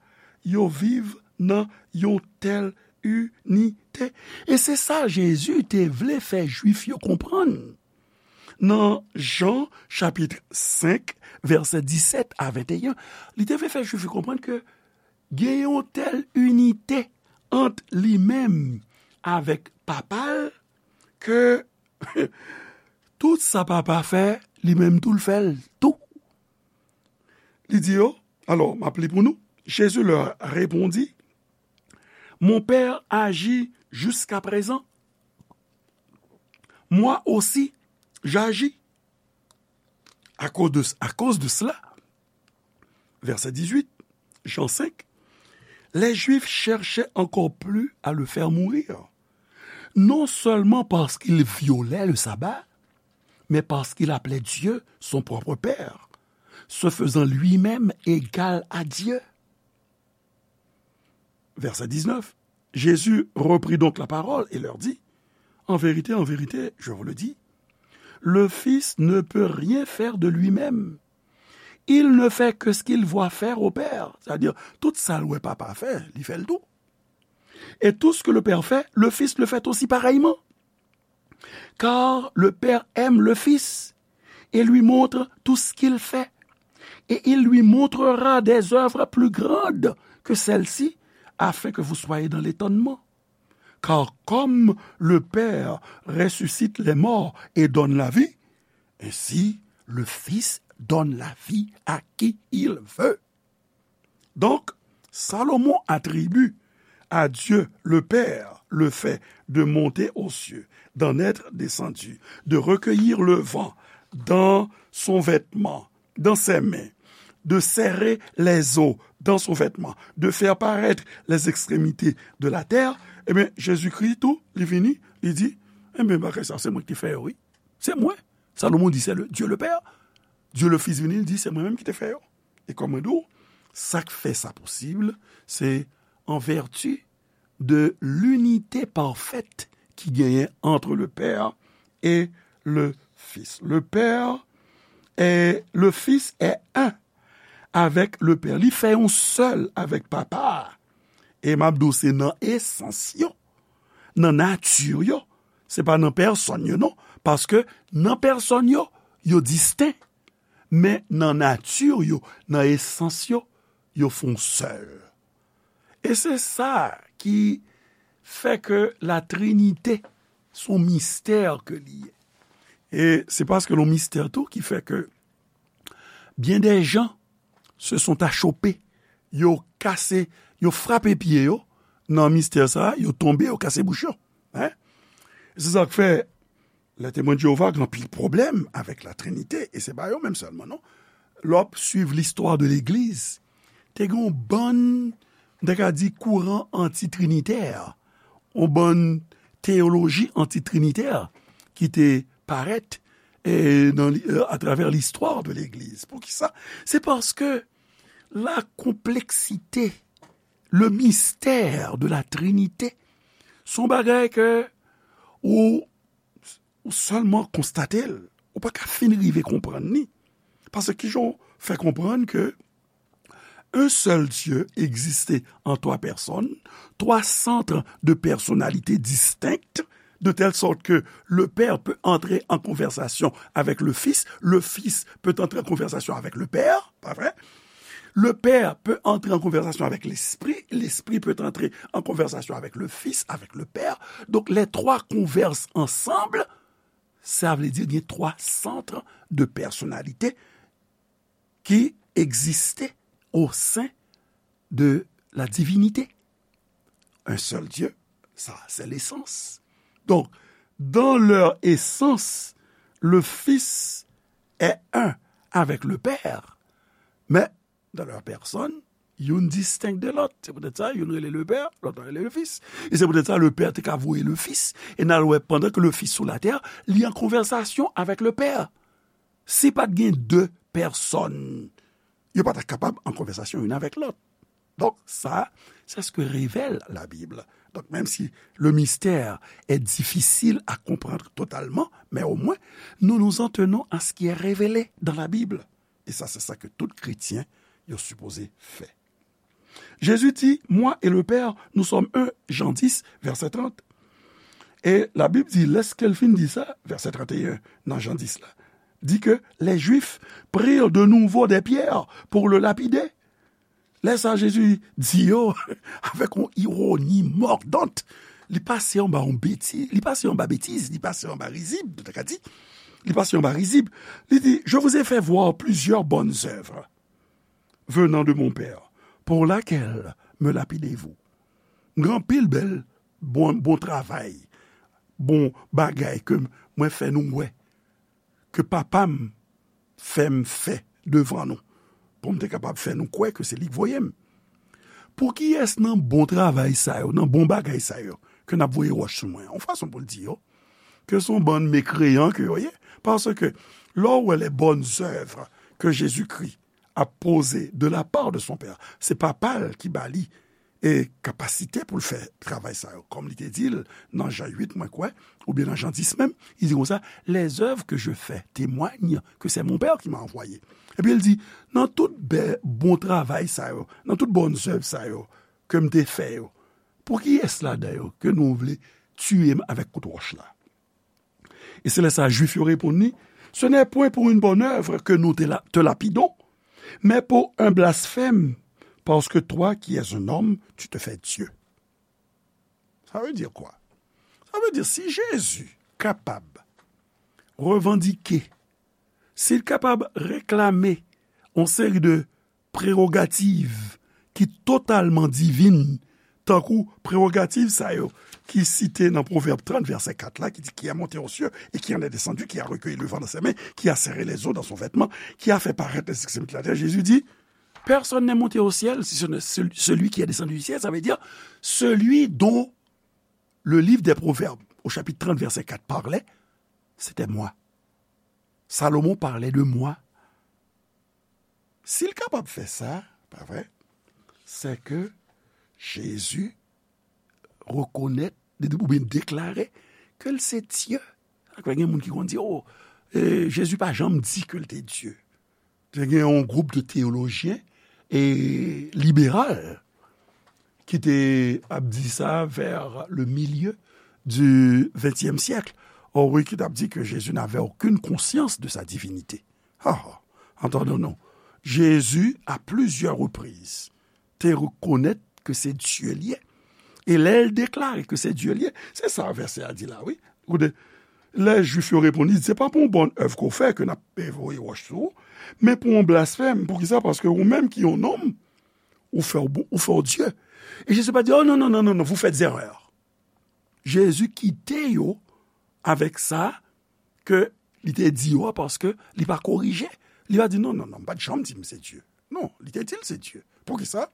yo viv nan yon tèl inite. E se sa Jezi te vle fè Jwif yo konprann. Nan Jan chapit senk, vèsè disèt a venteyen, li te vle fè Jwif yo konprann ke gen yon tèl inite ant li menm avèk Papa l ke tout sa Papa fè, li menm tou l fè l tou. Li di yo, alò, m ap li pou nou. Jésus leur répondit, Mon Père agit jusqu'à présent. Moi aussi, j'agis. À cause de, à cause de cela, verset dix-huit, Jean cinq, les Juifs cherchaient encore plus à le faire mourir, non seulement parce qu'il violait le sabbat, mais parce qu'il appelait Dieu son propre Père, se faisant lui-même égal à Dieu. Verset dix-neuf. Jésus reprit donc la parole et leur dit, En vérité, en vérité, je vous le dis, le Fils ne peut rien faire de lui-même. Il ne fait que ce qu'il voit faire au Père. C'est-à-dire, tout sa l wè Papa fè, li fè l tou. Et tout ce que le Père fait, le Fils le fait aussi pareillement. Car le Père aime le Fils et lui montre tout ce qu'il fait. Et il lui montrera des œuvres plus grandes que celles-ci, afin que vous soyez dans l'étonnement. Car comme le Père ressuscite les morts et donne la vie, ainsi le Fils donne la vie à qui il veut. Donc, Salomon attribue à Dieu le Père le fait de monter aux cieux, d'en être descendu, de recueillir le vent dans son vêtement, dans ses mains, de serrer les eaux dans son vêtement, de faire paraître les extrémités de la terre, ebyen, Jezikri tou, li vini, li di, ebyen, bagay sa, se mwen ki fè yo, wi. Se mwen. Salomon di, se le, Dieu le Père. Dieu le Fils vini, li di, se mwen menm ki te fè yo. E kòm mwen di w, sa k fè sa posib, se an vèti de linite pafèt ki genyen entre le Père et le Fils. Le Père et le Fils est un avec le Père. Li fè yon sèl avèk Papa a. E m ap di w, se nan esans yo, nan nati yo. Se pa nan pèsòn yo, non. Paske nan pèsòn yo, yo disten. Men nan nati yo, nan esans yo, yo fè yon sèl. E se sa ki fè ke la Trinite se yon mistè ke li ye. E se paske l yon mistè tou ki fè ke byen dè jan se sont achoppés. Yo kase, yo frape pye yo nan mistè sa a, yo tonbe, yo kase bouch yo. Hein? Se sa k fè, lè Temwen de Jewova gen anpil pwoblèm avèk la Trinite, e se pa yo menm sèlman, non. Lè w ap swiv listwa de legliz, te gen yon bann, m ta ka di, kouran antitrinitè, yon bann teyoloji antitrinitè ki te parèt, e, nan li-, e, atravè listwa de legliz. Poukisa? Se paske la konpleksite, le mystère de la Trinité, se yon bagay ke ou, ou sèlman konstate l, ou pa ka fin rive konprann li. Paske kijan w fè konprann ke un seul Dieu existait en trois personnes, trois centres de personnalité distinctes, de telle sorte que le Père peut entrer en conversation avec le Fils, le Fils peut entrer en conversation avec le Père, pas vrai? Le Père peut entrer en conversation avec l'Esprit, l'Esprit peut entrer en conversation avec le Fils, avec le Père. Donc les trois conversent ensemble, sa vle di gen twa sant de pèsonalite ki egziste au sein de la divinité. Un seul Dieu, ça, c'est l'essence. Donc, dans leur essence, le Fils est un avec le Père, mais dans leur personne, youn distenk de lòt. Se poutèt sa, youn rele le Père, lòt la rele le Fils. E se poutèt sa, le Père te ka voye le Fils. E n al wè, pandan ke le Fils sou latè, li an konvèsasyon avèk le Père. Si pa t gen de pèsòn, yo pa ta kapab an konvèsasyon youn avèk lòt. Donk, sa, c'est ce que révèle la Bible. Donc, même si le mystère est difficile à comprendre totalement, mais au moins, nous nous en tenons à ce qui est révélé dans la Bible. E sa, se sa ke tout kretyen yo sipoze fè. Jezi di, Moi et le Père, nous sommes un, Jean dix, verset trente. E Labib di, lèske l fin di sa, vèsè trannteyen nan Jan dis la, di ke les Juifs prirent de nouveau des pierres pour le lapider. Lè sa, Jezi di yo avèk yon ironi mòdant. Li pase anba yon betiz, li pase anba betiz, li pase anba rizib, nou ta ka di. Li pase anba rizib. Li di, Je vous ai fait voir plusieurs bonnes œuvres venant de mon Père, pour laquelle me lapidez-vous? M gen anpil bèl bon, bon travay, bon bagay ke mwen fè nou wè, ke Papa m fè m fè devan nou, pou m te kapab fè nou kwè ke se li k voye m. Pou kiyès nan bon travay sa yo, nan bon bagay sa yo, ke n ap voye wòch sou mwen? Yon fason pou l di yo, ke se yon bann mekreyan ke yo ye, paske lè w wè les bonnes œuvres que Jésus-Christ a posées de la part de son Père, se Papa l ki ba li e kapasite pou l fè travay sa yo, kòm li te di l nan Jan uit, mwen kwè, oubyen nan Jan dis menm, li di konsa, Les œuvres que je fais témoignent que c'est mon Père qui m'a envoyé. Epi l di, nan tout bè, bon travay sa yo, nan tout bonnes œuvres sa yo ke m te fè yo, pou kiyès ladan yo ke nou vle tiye m avèk kout wòch la? E se lè sa Jwif yo reponn li, Ce n'est point pour une bonne œuvre que nous te, la- te lapidons, mais pour un blasphème, parce que toi qui es un homme, tu te fais Dieu. Sa vle di kwa? Sa vle di si Jezi kapab revandike, si l kapab reklame yon seri de prewogativ ki totalman divin, tankou prewogativ sa yo ki site nan Pwovèb trant, vèsè kat la, ki di, Qui a monté aux cieux et qui en est descendu, qui a recueilli le vent dans ses mains, qui a serré les eaux dans son vêtement, qui a fait paraître les extrémités de la terre. Jezi di, Personne n'est monté au ciel, si ce n'est celui qui est descendu du ciel, ça veut dire celui dont le livre des Proverbes, au chapitre trente, verset quatre, parlait, c'était moi. Salomon parlait de moi. Si l kapab fè sa, pa vre, se ke Jezi rekonèt oubyen deklare ke l se Dye. Sa k fè gen moun ki konn di, o, e, Jezi pa janm di ke l te Dye. Te gen yon gwoup de teyolojyen e liberal ki te ap di sa vers le milieu du vingtième siècle. O wi, ki t ap di ke Jezi n'avait aucune conscience de sa divinité. Ha, ha. Antande non. Jezi, à plusieurs reprises, te rekonèt ke se Dye l ye. E lè l deklare ke se Dye l ye, se sa vèsè a di la, wi. Koute, lè Jwif yo reponn li, se pa pou yon bòn èv ke w fè ke n ap voye wòch sou ou, men pou yon blasfèm. Poukisa? Paske ou menm ki yon nonm, ou fè w bon, ou fè w Dye. E Jezi pa di, o non, non, non, non, non, vous faites erreur. Jezi kite yo avèk sa ke li te di yo a, paske li pa korije. Li pa di, non, non, non, m pa t janm di m se Dye. Non, li te di l se Dye. Poukisa?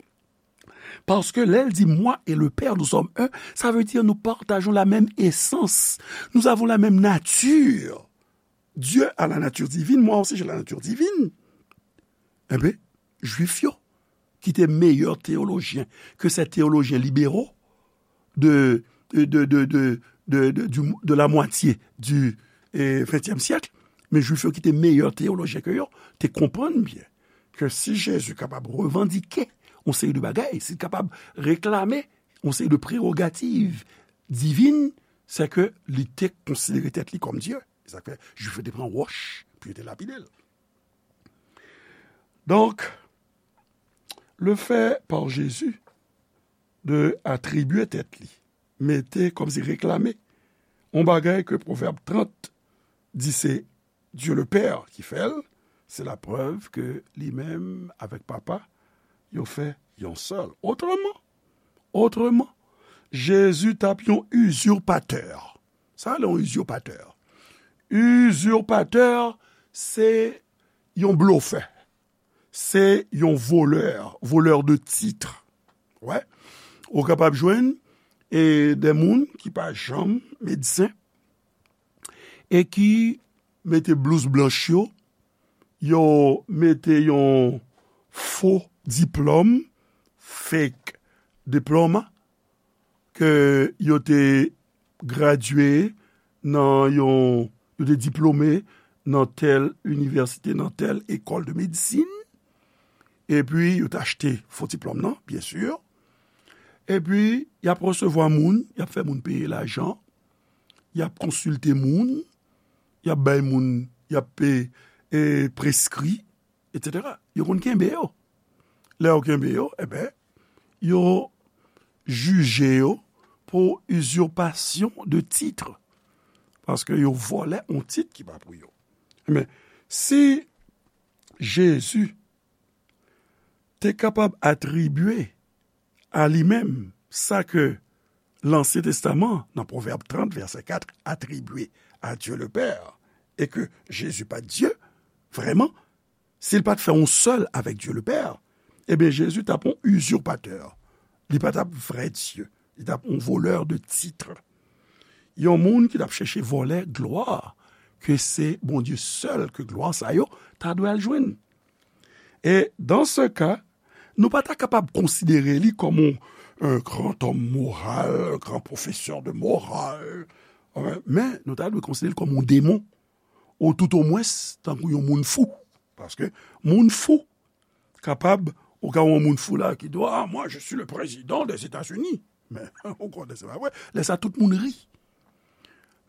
Paske lè l di, Moi et le Père, nous sommes un, sa vle di nou patajon la menm esans. Nous avons la même nature. Dieu a la nature divine, moi aussi j'ai la nature divine. Enben, Jwif yo, ki te meyè teyolojyen ke sèt teyolojyen libero de, de, de, de, de, de, de, du- de la mwatye di eh, ventyèm syèk, men Jwif yo ki te meyè teyolojyen ke yo, te konprann byen ke si Jezi kapab revandike yon seri de bagay, si l kapab reklame yon seri de prewogativ divin, se ke li te konsidere tèt li kòm Dye. Se sa k fè Jwif yo te pran wòch pou yo te lapide l. Donk, le fait par Jésus de atribye tèt li, mete kòmsi reklame, yon bagay ke Pwovèb trant di se Dieu le Père ki fè l, se laprèv ke li menm avèk Papa, yo fè yon sèl. Otreman, otreman, Jezi t ap yon izirpatè. Sa rele yon izirpatè. Izirpatè, se yon blofè. Se yon volè, volè de titre. Wè. Ou kapab jwenn e de moun ki pa janm medsen e ki mete blouz blanch yo, yo mete yon fo diplòm, fake diploma, ke yo te gradye nan yon, yo te diplome nan tèl inivèsite, nan tèl ekòl de medisin, epi yo t achte fo diplòm nan, byen si, epi y ap resevwa moun, y ap fè moun peye lajan, y ap konsilte moun, y ap bay moun, y ap pe, e, preskri, etsetera. Yo konn kenbe yo. Lè yo kenbe yo, enben, yo jije yo pou usurpation de titre. Paske yo vòlè yon tit ki pa pou yo. Enben, si Jezi te kapab atribye a li menm sa ke Lansyen Testaman, nan Pwovèb trant, vèsè kat, atribye a Dye le Pè, e ke Jezi pa t Dye, vrèman, si l pa t fè yon sèl avèk Dye le Pè, ebyen, Jezi t ap yon izipatè. Li pa t ap vrè Dye. Li t ap yon volè de tit. Yon moun ki t ap chèche vòlè glwa ke se Bondye sèl ke glwa sa yo ta dwe al jwenn. E dans ce cas, nou pa ta kapab konsidere li kòm yon, un grand homme moral, un grand professeur de morale, euh, men nou ta dwe konsidere l kòm yon demon, ou toutomwens tankou yon moun fou. Paske moun fou kapab, ou ka wè yon moun fou la ki di, ah, moi, je suis le président des États-Unis. Men, ou konnen se pa vre. Lè sa, tout moun ri.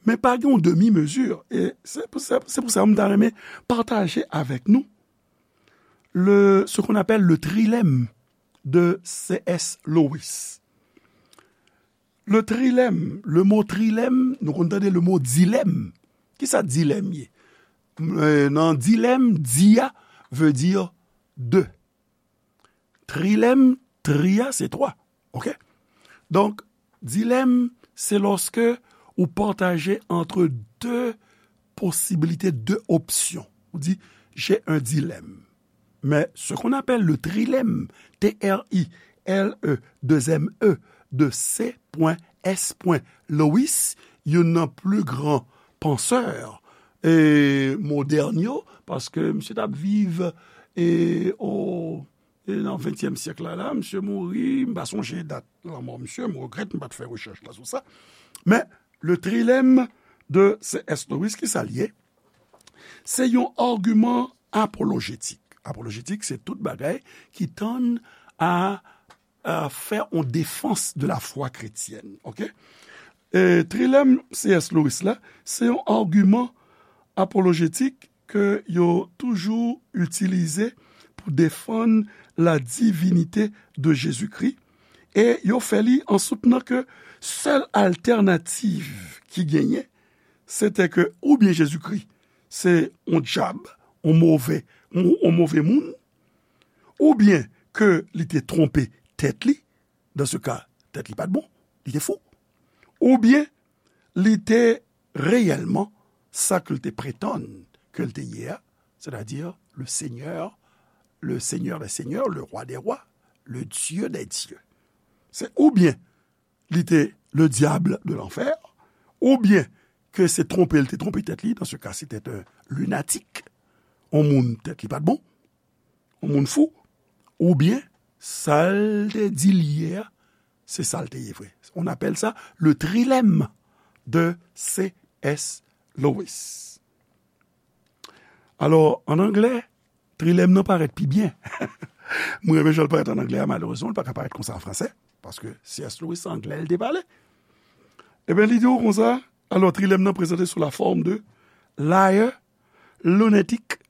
Men pa gen yon demi mezi. E se pou sa, se pou sa m ta renmen pataje avèk nou le, ce qu'on appelle le trilemme de C S Lewis. Le trilemme, le mo trilemme, nou konn tande le mo dilemme. Kisa dilemme ye? E, nan dilemme, di a veut dire deux. Trilemme, tri a, se twa. Oke? Donk, dilemme, se lòske ou pataje entre deux possibilités, deux options. Ou di, j'ai un dilemme. Mais ce qu'on appelle le trilemme, T R I L E, deux M E, de C S Lewis, youn nan pli gran pansè, e, modèn yo, paske misye t ap viv, e, o, e, nan ventyèm syèk la, la, misye mouri, m pa sonje dat lanmò misye, m regrèt m pa t fè rechèch la sou sa. Men, le trilemme de C S Lewis, kisa l ye? Se yon agiman apolojetik. Apolojetik, se tout bagay ki tann a, a fè yon defans de la foi chrétienne, oke? E trilème C S Lewis la, se yon agiman apolojetik ke yo toujou itilize pou defann la divinité de Jésus-Christ, e yo fè li an soutnan ke sèl altènativ ki genyen, se te ke oubyen Jezikri se yon dyab, yon move, yon, yon move moun, oubyen ke li te twonpe tèt li, dans ce cas, tèt li pa t bon, li te fou, oubyen li te reyèlman sa ke l te pretann ke l te ye a, c'est-à-dire le Seigneur, le Seigneur des Seigneurs, le Roi des Rois, le Dieu des Dieux. Se oubyen li te le diable de l'enfer, oubyen ke se twonpe l te twonpe tèt li, dans ce cas, c'était un lunatique, yon moun tèt li pa t bon, yon moun fou, oubyen sa l te di l ye a, se sa l te ye vre. On appelle ça le trilemme de C S Lewis. Alò, an anglè, trilèm nan parèt pi byen. Mwen renmen jan l parèt an anglè a, malerezman, l pa ka parèt konsa an fransè, paske C S Lewis se anglè l te pale. Ebyen, li di w konsa, alò, trilèm nan prezante sou la forme de liar, lunatic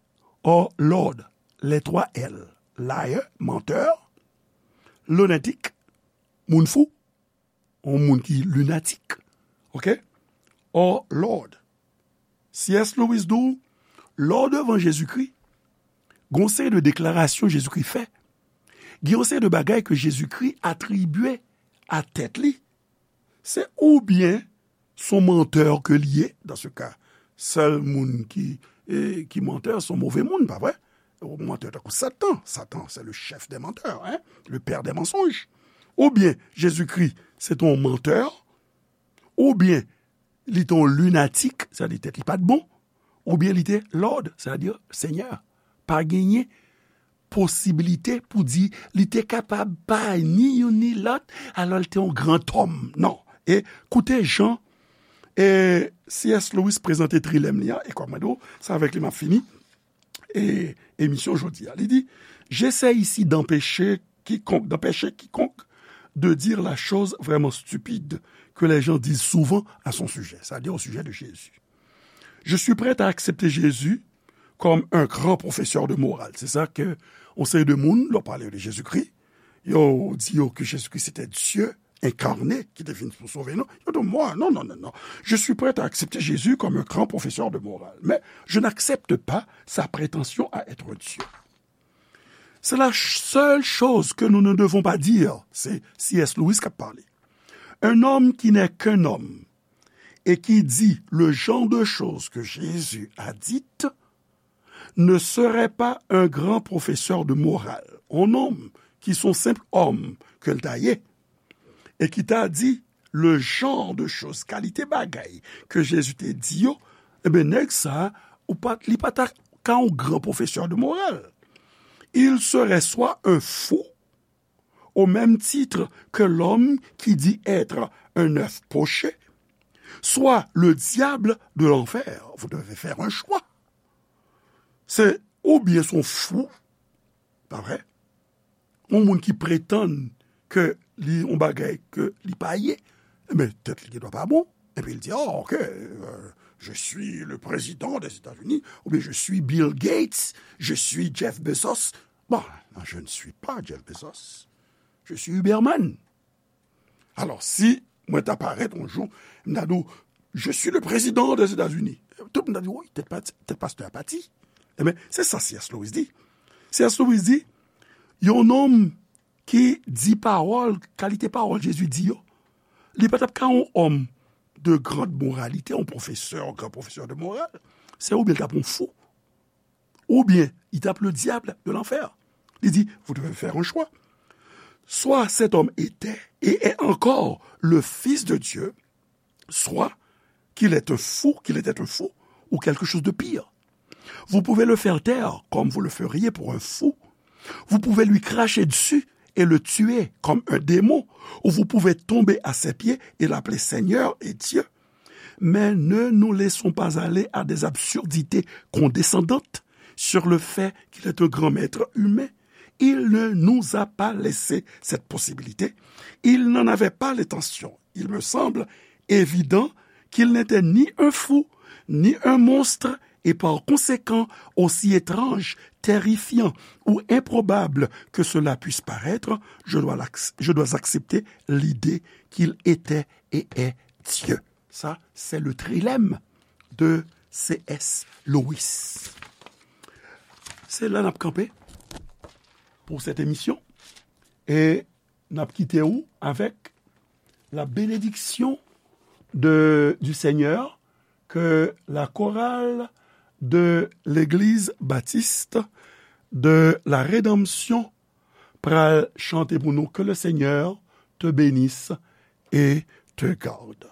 or lord, les trois L. Liar, menteur, lunatic, moun fou, yon moun ki linatik, oke? Or lord. C S Lewis di w, lè w devan Jezikri, gen yon seri de deklarasyon Jezikri fè, gen yon seri de bagay ke Jezikri atribye a tèt li, se oubyen se yon mantè ke li ye, dans ce cas, sèl moun ki, e, ki mantè, se yon move moun, pa vre? Yon mantè tankou Satan. Satan, c'est le chef des menteurs, hein? Le père des mensonges. Oubyen Jezikri, se te yon mantè, oubyen li te yon linatik, sètadi tèt li pa t bon, oubyen li te lord, sètadi senyè. Pa genyen posibilite pou di li te kapab pa ni youn ni lòt, alò li te yon gran òm. Non. E koute jan E C S Lewis prezante trilèm li a, e kòm mwen di w, se avèk li m ap fini e emisyon jodi a. Li di, j'essaie ici d'empêcher quiconque, d'empêcher quiconque de dire la chose vraiment stupide que les gens disent souvent à son sujet, c'est-à-dire au sujet de Jésus. Je suis prêt à accepter Jésus comme un grand professeur de morale. Se sa ke yon seri de moun, lè w pale de Jezikri, yo di yo ke Jezikri se te Dye enkarne ki te vin pou sove nou. Yo di, mwen, non, non, non, non. Je suis prêt à accepter Jésus comme un grand professeur de morale, mais je n'accepte pas sa prétention à être Dieu. C'est la ch- seule chose que nous ne devons pas dire. Se C S Lewis k ap pale. Un homme qui n'est qu'un homme et qui dit le genre de choses que Jésus a dites ne serait pas un grand professeur de morale. Un homme qui sont simple homme ke l ta ye, e ki ta di le genre de choses, kalite bagay ke Jezi te di yo, ebyen, nèg sa, ou pa, li pa ta ka yon gran pwofesè de moral. Il serait soit un fou, au même titre que l'homme qui dit être un œuf poché, soit le diable de l'enfer. Vous devez faire un choix. Se oubyen se yon fou, pa vre? Yon moun ki pretann ke li yon bagay ke li pa ye, ebyen, tèt li gendwa pa bon. Epi li di, oh, ok, euh, je suis le président des États-Unis, oubyen je suis Bill Gates, je suis Jeff Bezos. Bon, non, je ne suis pas Jeff Bezos. Je suis Huberman. Alò, si mwen ta parèt yon jou, m ta di w, je suis le président des États-Unis. Tout moun ta di, wi, tèt pati, tèt pastè a pati. Ebyen, se sa C S Lewis di. C S Lewis di, yon nonm ki di pawòl, kalite pawòl Jezi di yo, li pa t ap ka yon òm de grande moralité, yon pwofesè, yon gran pwofesè de moral. Se oubyen l t ap yon fou, oubyen li t ap le diable de l'enfer. Li di, vous devez faire un choix. Soit cet homme était et est encore le Fils de Dieu, soit qu'il est un fou, qu'il était un fou, ou quelque chose de pire. Vous pouvez le faire taire comme vous le feriez pour un fou. Vous pouvez lui cracher dessus et le tuer comme un démon, ou vous pouvez tomber à ses pieds et l'appeler Seigneur et Dieu. Mais ne nous laissons pas aller à des absurdités condescendantes sur le fait qu'il est un grand maître humain. Il ne nous a pas laissé cette possibilité. Il n'en avait pas l'intention. Il me semble évident qu'il n'était ni un fou, ni un monstre, et par conséquent, aussi étrange, terrifiant ou improbable que cela puisse paraître, je dois, je dois accepter l'idée qu'il était et est Dieu. Sa, se le trilèm de C S Lewis. Se la n ap kanpe pou sèt emisyon. E n ap kite w avèk la bénédiction de, du Seigneur que la chorale de l'Église baptiste de la Rédemption pral chante pour nous. Que le Seigneur te bénisse et te garde.